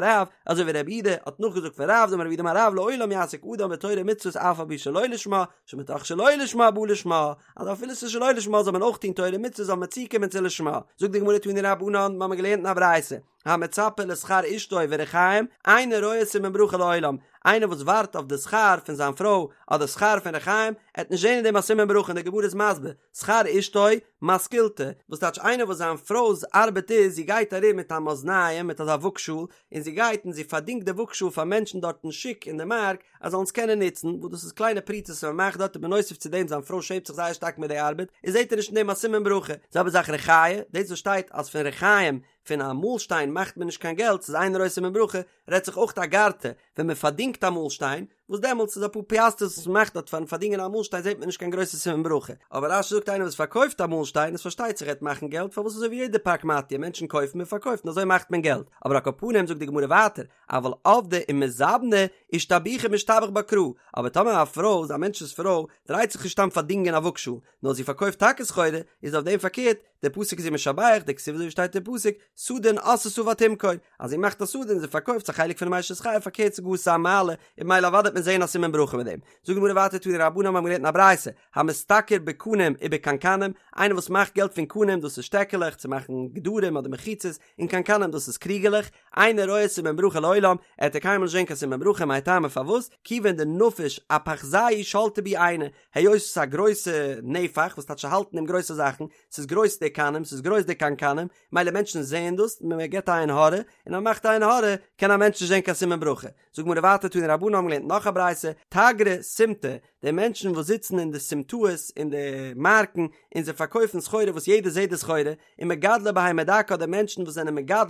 רב, אזוי ווי רב יהודה האט נאכגעזאגט פון רב, דאמר רב יהודה אמר רב לעולם יעסוק אדם בתורה ומצוות אף על פי שלא לשמה, שמתוך שלא לשמה בא לשמה, אז אפילו ס'איז שלא לשמה זאל מען אויך טון תורה ומצוות זאל מען צוקומען צו לשמה. זאגט די גמרא תנו רבנן, מ'האמיר געלערנט אין א ברייתא, המצפה לשכר אשתו וריחיים, אינו רואה סימן ברכה לעולם, איינער וואס ווארט אויף די שכר פון זיין פרוי אדער שכר פון ריחיים, עט נישט זען אין דעם א סימן ברכה און די גמרא איז מסביר, שכר אשתו, מתקילתא, וואס טייטש איינער וואס זיין פרוי'ס ארבעט איז זי גייט ארום מיט א מאזניים מיט אזא וואגשאל און זי גייט און זי פארדינגט די וואגשאל פאר מענטשן דארט אין שוק אין די מארק אז זאלן עס קענען נוצן, וואס דאס איז קליינע פרוטות וואס מען מאכט דארט און בנוסף צו דעם זיין פרוי שעמט זיך זייער שטארק מיט די ארבעט און זעט ער נישט אין דעם א סימן ברכה, זעלבע זאך ריחיא, דאס וואס שטייט אז פון ריחיים פון א מאלשטיין מאכט מען נישט קיין געלט, ס'איז אינו רואה סימן ברכה, רעדט זיך אויך אגרתא, ווען מען פארדינגט א מאלשטיין, וואס דעמאלטס איז אפאר פיאסטערס וואס מען מאכט דארט פארן פארדינגען א מאלשטיין זעט מען נישט קיין גרויסע סימן ברכה, אבער רש"י זאגט איינער וואס פארקויפט א מאלשטיין איז פארשטייט זיך ער וועט מאכן געלט פארוואס אזוי ווי יעדע פרקמטיא מענטשן קויפן און פארקויפן אזוי מאכט מען געלט, אבער על כל פנים זאגט די גמרא ווייטער אבל עבדה ומזבנה אישתבוחי משתבח בה קרא, אבער טאמער א פרוי, א מענטש'ס פרוי, דרייט זיך נישט סתם פארדינגען א וואגשאל, נאר זי פארקויפט טאקע סחורה, איז אויף דעם פארקערט, דער פסוק איז איר משבח, דכתיב אזוי ווי שטייט אין פסוק, סדין עשתה ותמכור, אז זי מאכט א סדין און זי פארקויפט ס'איז א חלק פונעם אשת חיל פארקערט ס'גאר ס'איז א מעלה, און ממילא אוודאי וועט מען זעהן א סימן ברכה מיט דעם. זאגט די גמרא ווייטער תנו רבנן מיר האבן געלערנט אין א ברייתא, המשתכר בקנים ובקנקנים, איינער וואס מאכט געלט פון קנים דאס איז שטעקעלעך צו מאכן גדרים אדער מחיצות, און קנקנים דאס איז קריגעלעך, אינו רואה סימן ברכה לעולם, ער וועט קיינמאל נישט זען קיין סימן ברכה, מאי טעמא פארוואס, כיוון דנפיש אפחזייהו שלטי בהו עינא, היות עס איז א גרויסע נפח וואס טייטש האלטן אין גרויסע זאכן, ס'איז גרויס די קנים, ס'איז גרויס די קנקנים, מילא מענטשן זעען דאס, מען געבט א עין הרע, און אז מען מאכט א עין הרע, קען א מענטש נישט זען קיין סימן ברכה. זאגט גמרא ווייטער תנו רבנן האבן געלערנט נאך א ברייתא, תגרי סימטא, די מענטשן וואס זיצן אין די סימטאות אין די מארקן און זיי פארקויפן סחורה וואס יעדער זעט די סחורה, און מגדלי בהמה דקה אדער מענטשן וואס זענען מגדל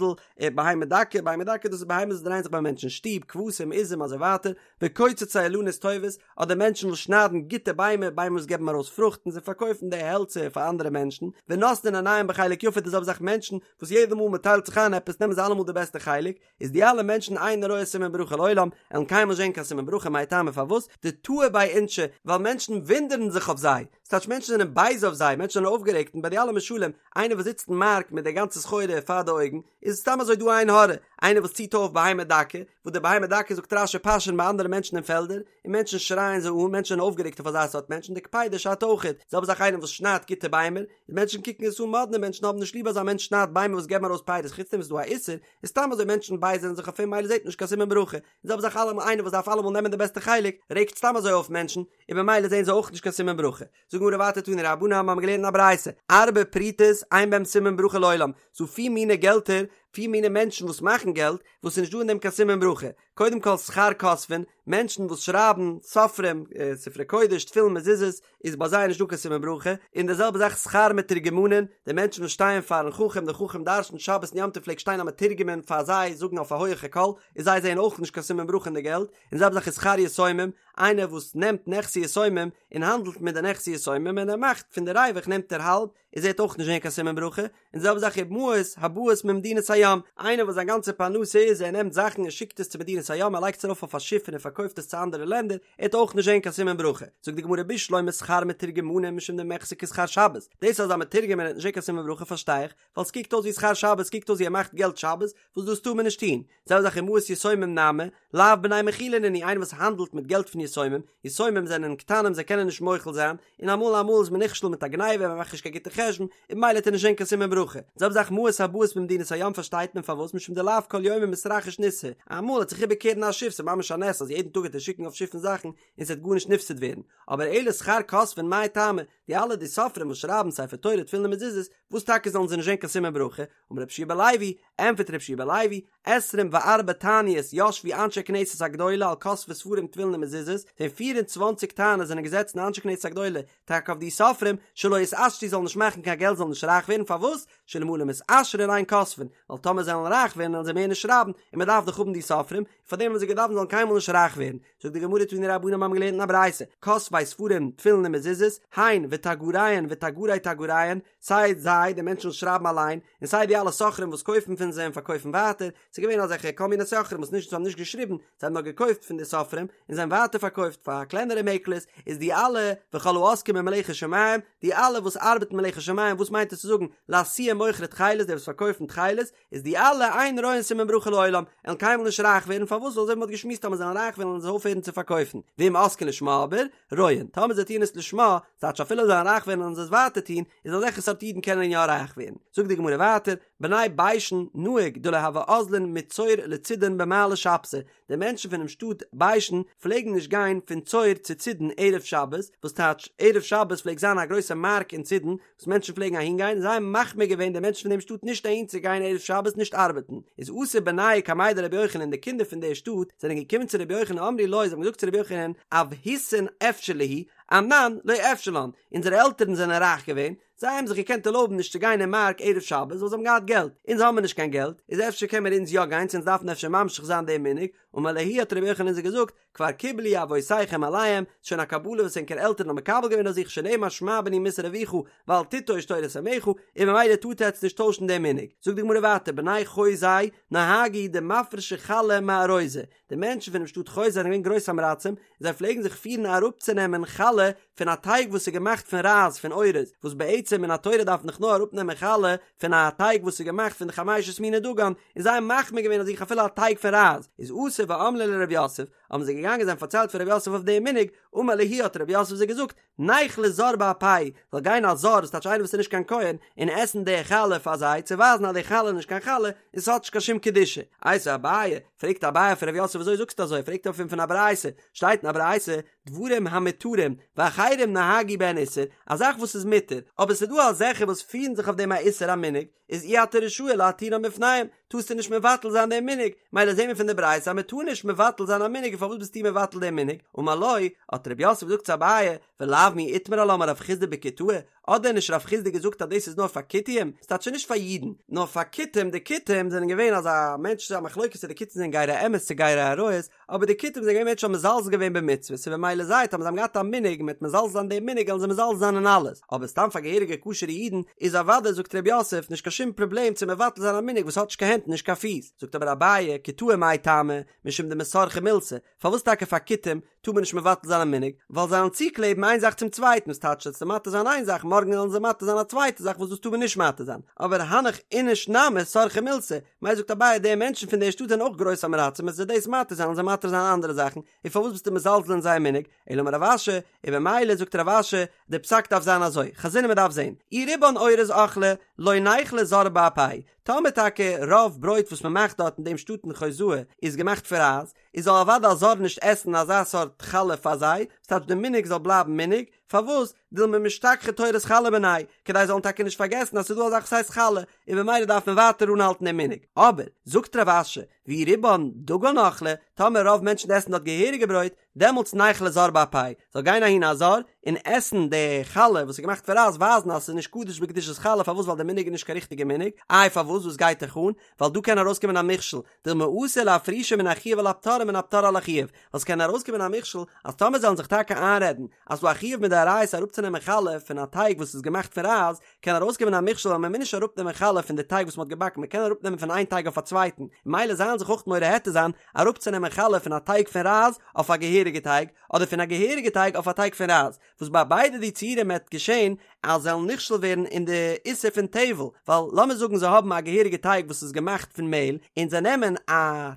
בהמה דקה, בהמה דקה דאס איז בהמות וואס דרייען זיך ביי מענטשן אין שטוב, כבשים, עזים, אזוי ווייטער, וקוצצי אילנות טובות, אדער מענטשן וואס שניידן גוטע ביימער, ביימער וואס געבן ארויס פרוכט און זיי פארקויפן די העלצער פאר אנדערע מענטשן, ונותנין עיניהם בחלק יפה די זעלבע זאך מענטשן וואס יעדע מאל מען טיילט זיך איין עפעס נעמען זיי אלעמאל די בעסטע חלק, איז די אלע מענטשן אינו רואה סימן ברכה לעולם, עלן קיינמאל זען קיין סימן ברכה מאי טעמא פארוואס, דתהו ביה אינשי, ווייל מענטשן וואונדערן זיך אויף זיי, ס'טייטש מענטשן זענען בייז אויף זיי, מענטשן זענען אויפגערעגט און ביי די אלע משלים, איינער וואס זיצט אין מארק מיט די גאנצע סחורה פאר די אויגן, איז סתם אזוי דא עין הרע, איינער וואס ציט אויף בהמה דקה, וואס די בהמה דקה זאגט רש"י פאשען ביי אנדערע מענטשן אין פעלדער, און מענטשן שרייען זיי אן, מענטשן זענען אויפגערעגט אויף אזא סארט מענטשן, די קפידא שאדט אויכעט, זעלבע זאך איינער וואס שניידט גוטע ביימער, און מענטשן קוקן עס אן מאדנע, מענטשן האבן נישט ליב אז א מענטש שניידט ביימער וואס געבן ארויס פירות, חוץ דעם איז דא א איסור, איז סתם אזוי מענטשן בייזערן זיך אויף אים מילא זעט מען נישט קיין סימן ברכה, און זעלבע זאך אלעמאל איינער וואס דארף אלעמאל נעמען די בעסטע חלק, רעגט סתם אזוי אויף מענטשן, און במילא זעען זיי אויך נישט קיין סימן ברכה. זאגט גמרא ווייטער תנו רבנן האבן מיר געלערנט אין א ברייתא, ארבע פרוטות אין בהם סימן ברכה לעולם, ס'דא פיר מיני געלטער פיר מיני מענטשן וואס מאכן געלט, וואס איז נישט דא אין דעם קיין סימן ברכה, קודם כל שכר כותבין, מענטשן וואס שרייבן סופרים, ספרי קודש, תפילין, מזוזות, איז ביי זיי נישט דא קיין סימן ברכה, און די זעלבע זאך שכר מתורגמנין, די מענטשן וואס שטייען פארן חכם, דער חכם דרשנ'ט שבת און יום טוב פלעגט שטיין א מתורגמן פאר זיי זאגן אויף א הויעכע קול, איז זיי זעען אויך נישט קיין סימן ברכה אין די געלט, און די זעלבע זאך איז שכר יתומים, איינער וואס נעמט נכסי יתומים און האנדלט מיט די נכסי יתומים און ער מאכט פון די ריווח נעמט ער האלב, איז ער וועט אויך נישט זען קיין סימן ברכה, און די זעלבע זאך ומעות הבאות ממדינת הים, איינער וואס זיין גאנצע פרנסה איז ער נעמט זאכן און שיקט עס צו מדינת הים ער לייגט עס ארויף אויף א שיף און ער פארקויפט עס צו אנדערע לענדער, ער וועט אויך נישט זען קיין סימן ברכה, זאגט די גמרא בשלמא שכר מתורגמנים משום דמיחזי כשכר שבת, דאס אז א מתורגמן וועט נישט זען קיין סימן ברכה פארשטיי איך, ווייל ס'קוקט אויס ווי שכר שבת, ס'קוקט אויס ווי ער מאכט געלט שבת, וואס דאס טאר מען נישט טון, זעלבע זאך ומעות יתומים נמי, לאו בני מכילה נינהו, איינער וואס האנדלט מיט געלט פון יתומים, יתומים זענען קטנים זיי קענען נישט מוחל זיין, און אמאל אמאל איז מען נכשל מיט א גניבה מען מאכט נישט קיין גוטע חשבון, און ממילא וועט ער נישט זען קיין סימן ברכה. זעלבע זאך מעות הבאות ממדינת הים פארשטייט מען פארוואס משום דלאו כל יומא מתרחיש ניסא, אמאל וועט זיך איבערקערן א שיף ס'איז ממש א נס אז יעדן טאג וועט ער שיקן אויף שיפן זאכן און ס'וועט גארנישט נפסד ווערן, אבער אלא שכר כותבין מאי טעמא, די אלע די סופרים וואס שרייבן ספר תורה תפילין און מזוזות, וואס טאקע זאלן זיי נישט זען קיין סימן ברכה, אמר רבי יהושע בן לוי, ענטפערט רבי יהושע בן לוי, עשרים וארבע תעניות ישבו אנשי כנסת הגדולה על כותבי ספרים תפילין ומזוזות, פון פיר און צוואנציג תעניות זענען געזעצן אנשי כנסת הגדולה טאקע אויף די סופרים, שלא יתעשרו זאלן נישט מאכן קיין געלט זאלן נישט רייך ווערן, פארוואס? שאלמלא מתעשרין אין כותבין, ווייל טאמער זיי וועלן רייך ווערן וועלן זיי מער נישט שרייבן, און מען דארף דאך האבן די סופרים, און פארדעם האבן זיי געדארפט זאלן קיינמאל נישט רייך ווערן. זאגט די גמרא תנו רבנן מיר האבן געלערנט אין א ברייתא, כותבי ספרים תפילין ומזוזות, הן ותגריהן ותגרי תגריהן, סיי זיי, די מענטשן וואס שרייבן אליין, און סיי די אלע סוחרים וואס קויפן פון זיי און פארקויפן ווייטער, ס'איז געווען אזעלכע כל מיני סוחרים וואס נישט זיי האבן נישט געשריבן, זיי האבן נאר געקויפט פון די סופרים, און זיי האבן ווייטער פארקויפט פאר קלענערע מעקלערס, איז די אלע וכל העוסקים במלאכת שמים, די אלע וואס ארבעטן מלאכת שמים, וואס מיינט עס צו זאגן, לאתויי מוכרי תכלת, די וואס פארקויפן תכלת, איז די אלע אין רואין סימן ברכה לעולם, וועלן קיינמאל נישט רייך ווערן, פארוואס? ווייל אזוי ווי מ'האט געשמועסט אז מ'זאל רייך ווערן וועלן זיי אויפהערן צו פארקויפן, ואם עוסקין לשמה אבער, רואין, טאמער זיי טוען עס לשמה, ס'טייטש אפילו זיי וועלן רייך ווערן וועלן זיי עס ווייטער טון, איז אזעלכע סארט אידן קענען יא רייך ווערן. זאגט די גמרא ווייטער, בני ביישן נהוג דלא הוו אזלין מצור לצידון במעלי שבתא, די מענטשן פונעם שטאט ביישן פלעגן נישט גיין פון צור צו צידון ערב שבת, וואס טייטש ערב שבת פלעגט זיין א גרויסע מארק אין צידון וואס מענטשן פלעגן אהין גיין, זיי האבן מחמיר געווען די מענטשן פון דעם שטאט נישט אהין צו גיין ערב שבת נישט ארבעטן, איז אתו בנייהו קמיה דרבי יוחנן די קינדער פון דער שטאט זענען געקומען צו רבי יוחנן אמרו לו זיי האבן געזאגט צו רבי יוחנן אבהתין אפשר להו אנן לא אפשר לן, אונזערע עלטערן זענען רייך געווען, זיי האבן זיך געקענט ערלויבן נישט צו גיין אין מארק ערב שבת ווייל זיי האבן געהאט געלט, אונז האבן מיר נישט קיין געלט, איז אפשר קען מיר אונז יא גיין צו אונז דארפן אפשר ממשיך זיין דעם מנהג, אמר להו האט רבי יוחנן זיי געזאגט, כבר קיבלו אבותיכם עליהם, ס'איז שוין א קבלה וואס ענקער עלטערן האבן מקבל געווען אויף זיך שנאמר שמע בני מוסר אביך ואל תטוש תורת אמך, און ממילא טארט עטץ נישט טוישן דעם מנהג. זאגט די גמרא ווייטער, בני חוזאי נהגו דמפרשי חלה מארוזא, די מענטשן פונעם שטאט חוזאי זענען געווען גרויס עם הארצים, און זיי פלעגן זיך פירן אראפצונעמען חלה פון א טייג וואס איז געמאכט פון רייז פון אורז, וואס בעצם מן התורה דארף מען דאך נאר אראפנעמען חלה פון א טייג וואס איז געמאכט פון די חמשת מיני דגן, און זיי האבן מחמיר געווען אויף זיך אפילו א טייג פון רייז, איז אתו ואמרו ליה לרב יוסף, האבן זיי געגאנגען זיי האבן פארציילט פאר רב יוסף אויף דעם מנהג, אמר להו האט רב יוסף זיי געזאגט, ניכלה זר באפייהו, זאל גיין א זר, ס'טייטש איינער וואס איז נישט קיין כהן, און עסן די חלה פאר זיי, צו ווייזן אז די חלה איז נישט קיין חלה, און ס'האט נישט קיין שום קדושה. איתיביה אביי, פרעגט אביי פון רב יוסף וויאזוי זאגסטו אזוי, פרעגט אויף אים פון א ברייתא, שטייט אין א ברייתא, דברים המותרים, ואחרים נהגו בהן איסור, א זאך וואס איז מותר, אבער ס'איז דא אזעלכע וואס פירן זיך אויף דעם א איסור א מנהג, איז אי אתה רשאי להתירם בפניהם, טארסטו נישט מבטל זיין דעם מנהג, מילא זעהן מיר פון די ברייתא אז מען טאר נישט מבטל זיין א מנהג און פארוואס ביסטו מבטל דעם מנהג? אמר לו, האט רב יוסף געזאגט צו אביי, ולאו מי איתמר עלה אמר רב חסדא בכותאי, האט דען נישט רב חסדא געזאגט אז דאס איז נאר פאר כותים, ס'טייטש נישט פאר אידן, נאר פאר כותים, די כותים זענען געווען אזא מענטש, ס'איז א מחלוקת צו די כותים זענען גרי אמת צו גרי אריות, אבער די כותים זענען געווען מענטשן האבן מזלזל געווען במצוות און במילא זיי טאמער זיי האבן געהאט א מנהג מיט מזלזל זיין דעם מנהג וועלן זיי מזלזל זיין אין אלעס, אבער סתם פאר געהעריגע כשר'ע אידן איז אוודאי זאגט ר' יוסף נישט קיין שום פראבלעם צו מבטל זיין א מנהג וואס האט נישט קיין הענט און נישט קיין פיס, זאגט אבער אביי כותאי מאי טעמא משום דמסרכי מילתא, פארוואס טאקע פאר כותים טאר מען נישט מבטל זיין א מנהג, ווייל זיי וועלן צוקלעבן איין זאך צום צווייטן, וואס טייטש וועסטו מתיר זיין איין זאך מארגן וועלן זיי מתיר זיין א צווייטע זאך וואס דאס טאר מען נישט מתיר זיין, אבער הנך איניש נמי סרכי מילתא, מילא זאגט אביי די מענטשן פון דער שטאט זענען אויך גרויס עם הארצים וועסטו דאס מתיר זיין וועלן זיי מתיר זיין אנדערע זאכן, און פארוואס ביסטו מזלזל אין זייער מנהג, אלא אמר רב אשי, און במילא זאגט רב אשי, די פסק דארף זיין אזוי, חזינן מען דארף זען, אי רובן אורז אכלי, לא ניכלה זר באפייהו, טאמער טאקע רוב ברויט וואס מען מאכט דארט אין דעם שטאט אין חוזאי איז געמאכט פון רייז, איז זאל אוודאי א זר נישט עסן אזא סארט חלה פאר זיי, ס'טייטש די מנהג זאל בלייבן מנהג, פארוואס? דילמא משתכחא תורת חלה מינייהו, כדי זאלן טאקע נישט פארגעסן אז ס'איז דא א זאך וואס הייסט חלה, און במילא דארף מען ווייטער אנהאלטן דעם מנהג. אבער, זאגט רב אשי, ואי רובן דגן אכלי, טאמער רוב מענטשן עסן דארט געהעריגע ברויט, דעמאלטס ניכלה זר באפייהו, זאל גיין אהין א זר און עסן די חלה וואס איז געמאכט פון רייז, ווייזן אז ס'איז נישט קדוש בקדושת חלה, פארוואס ווייל די מנהג איז נישט קיין ריכטיגע מנהג, איי פארוואס וואס גייט דיך אן, ווייל דא קען ארויסקומען א מכשול, דילמא אתי לאפרושי מן החיוב על הפטור ומן הפטור על החיוב, ווייל ס'קען ארויסקומען א מכשול אז טאמער זיי וועלן זיך טאקע איינרעדן אז ס'דא א חיוב מדאורייתא אראפצונעמען חלה פון א טייג וואס איז געמאכט פון רייז, קען ארויסקומען א מכשול אז מ'מוז נישט אראפנעמען חלה פון די טייג וואס מ'האט געבאקן מ'קען אראפנעמען פון איין טייג אויף א צווייטן, ממילא זיי וועלן זיך אויך מורה היתר זיין אראפצונעמען חלה פון א טייג פון רייז אויף א געהעריגע טייג, אדער פון א געהעריגע טייג אויף א טייג פון רייז, וואס ביי ביידע די ציורים וועט געשען אז זיי וועלן נכשל ווערן אין די איסור פון טבל, ווייל לאמיר זאגן זיי האבן א געהעריגע טייג וואס איז געמאכט פון מעהל, און זיי נעמען א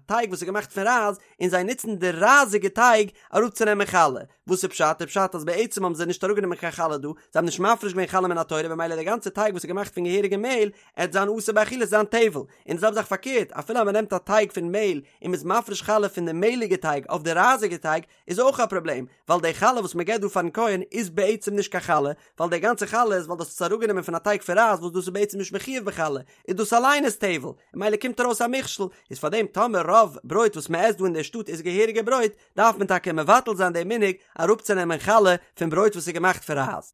טייג וואס איז געמאכט פון רייז און זיי נוצן די רייזיגע טייג אראפצונעמען חלה, וואס איז פשט? איז פשט אז בעצם האבן זיי נישט אראפגענומען קיין חלה דא, זיי האבן נישט מפריש געווען חלה מן התורה במילא די גאנצע טייג וואס איז געמאכט פון געהעריגע מעהל עט זיין אסור באכילה זיין טבל, און די זעלבע זאך פארקערט אפילו אז מען נעמט א טייג פון מעהל און מען איז מפריש חלה פון די מעהליגע טייג אויף די רייזיגע טייג איז אויך א פראבלעם, ווייל די חלה וואס מען געבט דא פארן כהן איז בעצם נישט קיין חלה, ווייל די גאנצע חלה איז ווייל דאס איז אראפגענומען פון א טייג פון רייז וואס דאס איז בעצם נישט מחויב בחלה, איז דאס אליין איז טבל, און ממילא קומט ארויס א מכשול, איז פארדעם טאמער רוב ברויט וואס מען עסט דא אין די שטאט איז געהעריגע ברויט, דארף מען טאקע מבטל זיין די מנהג אראפצונעמען חלה פון ברויט וואס איז געמאכט פון רייז.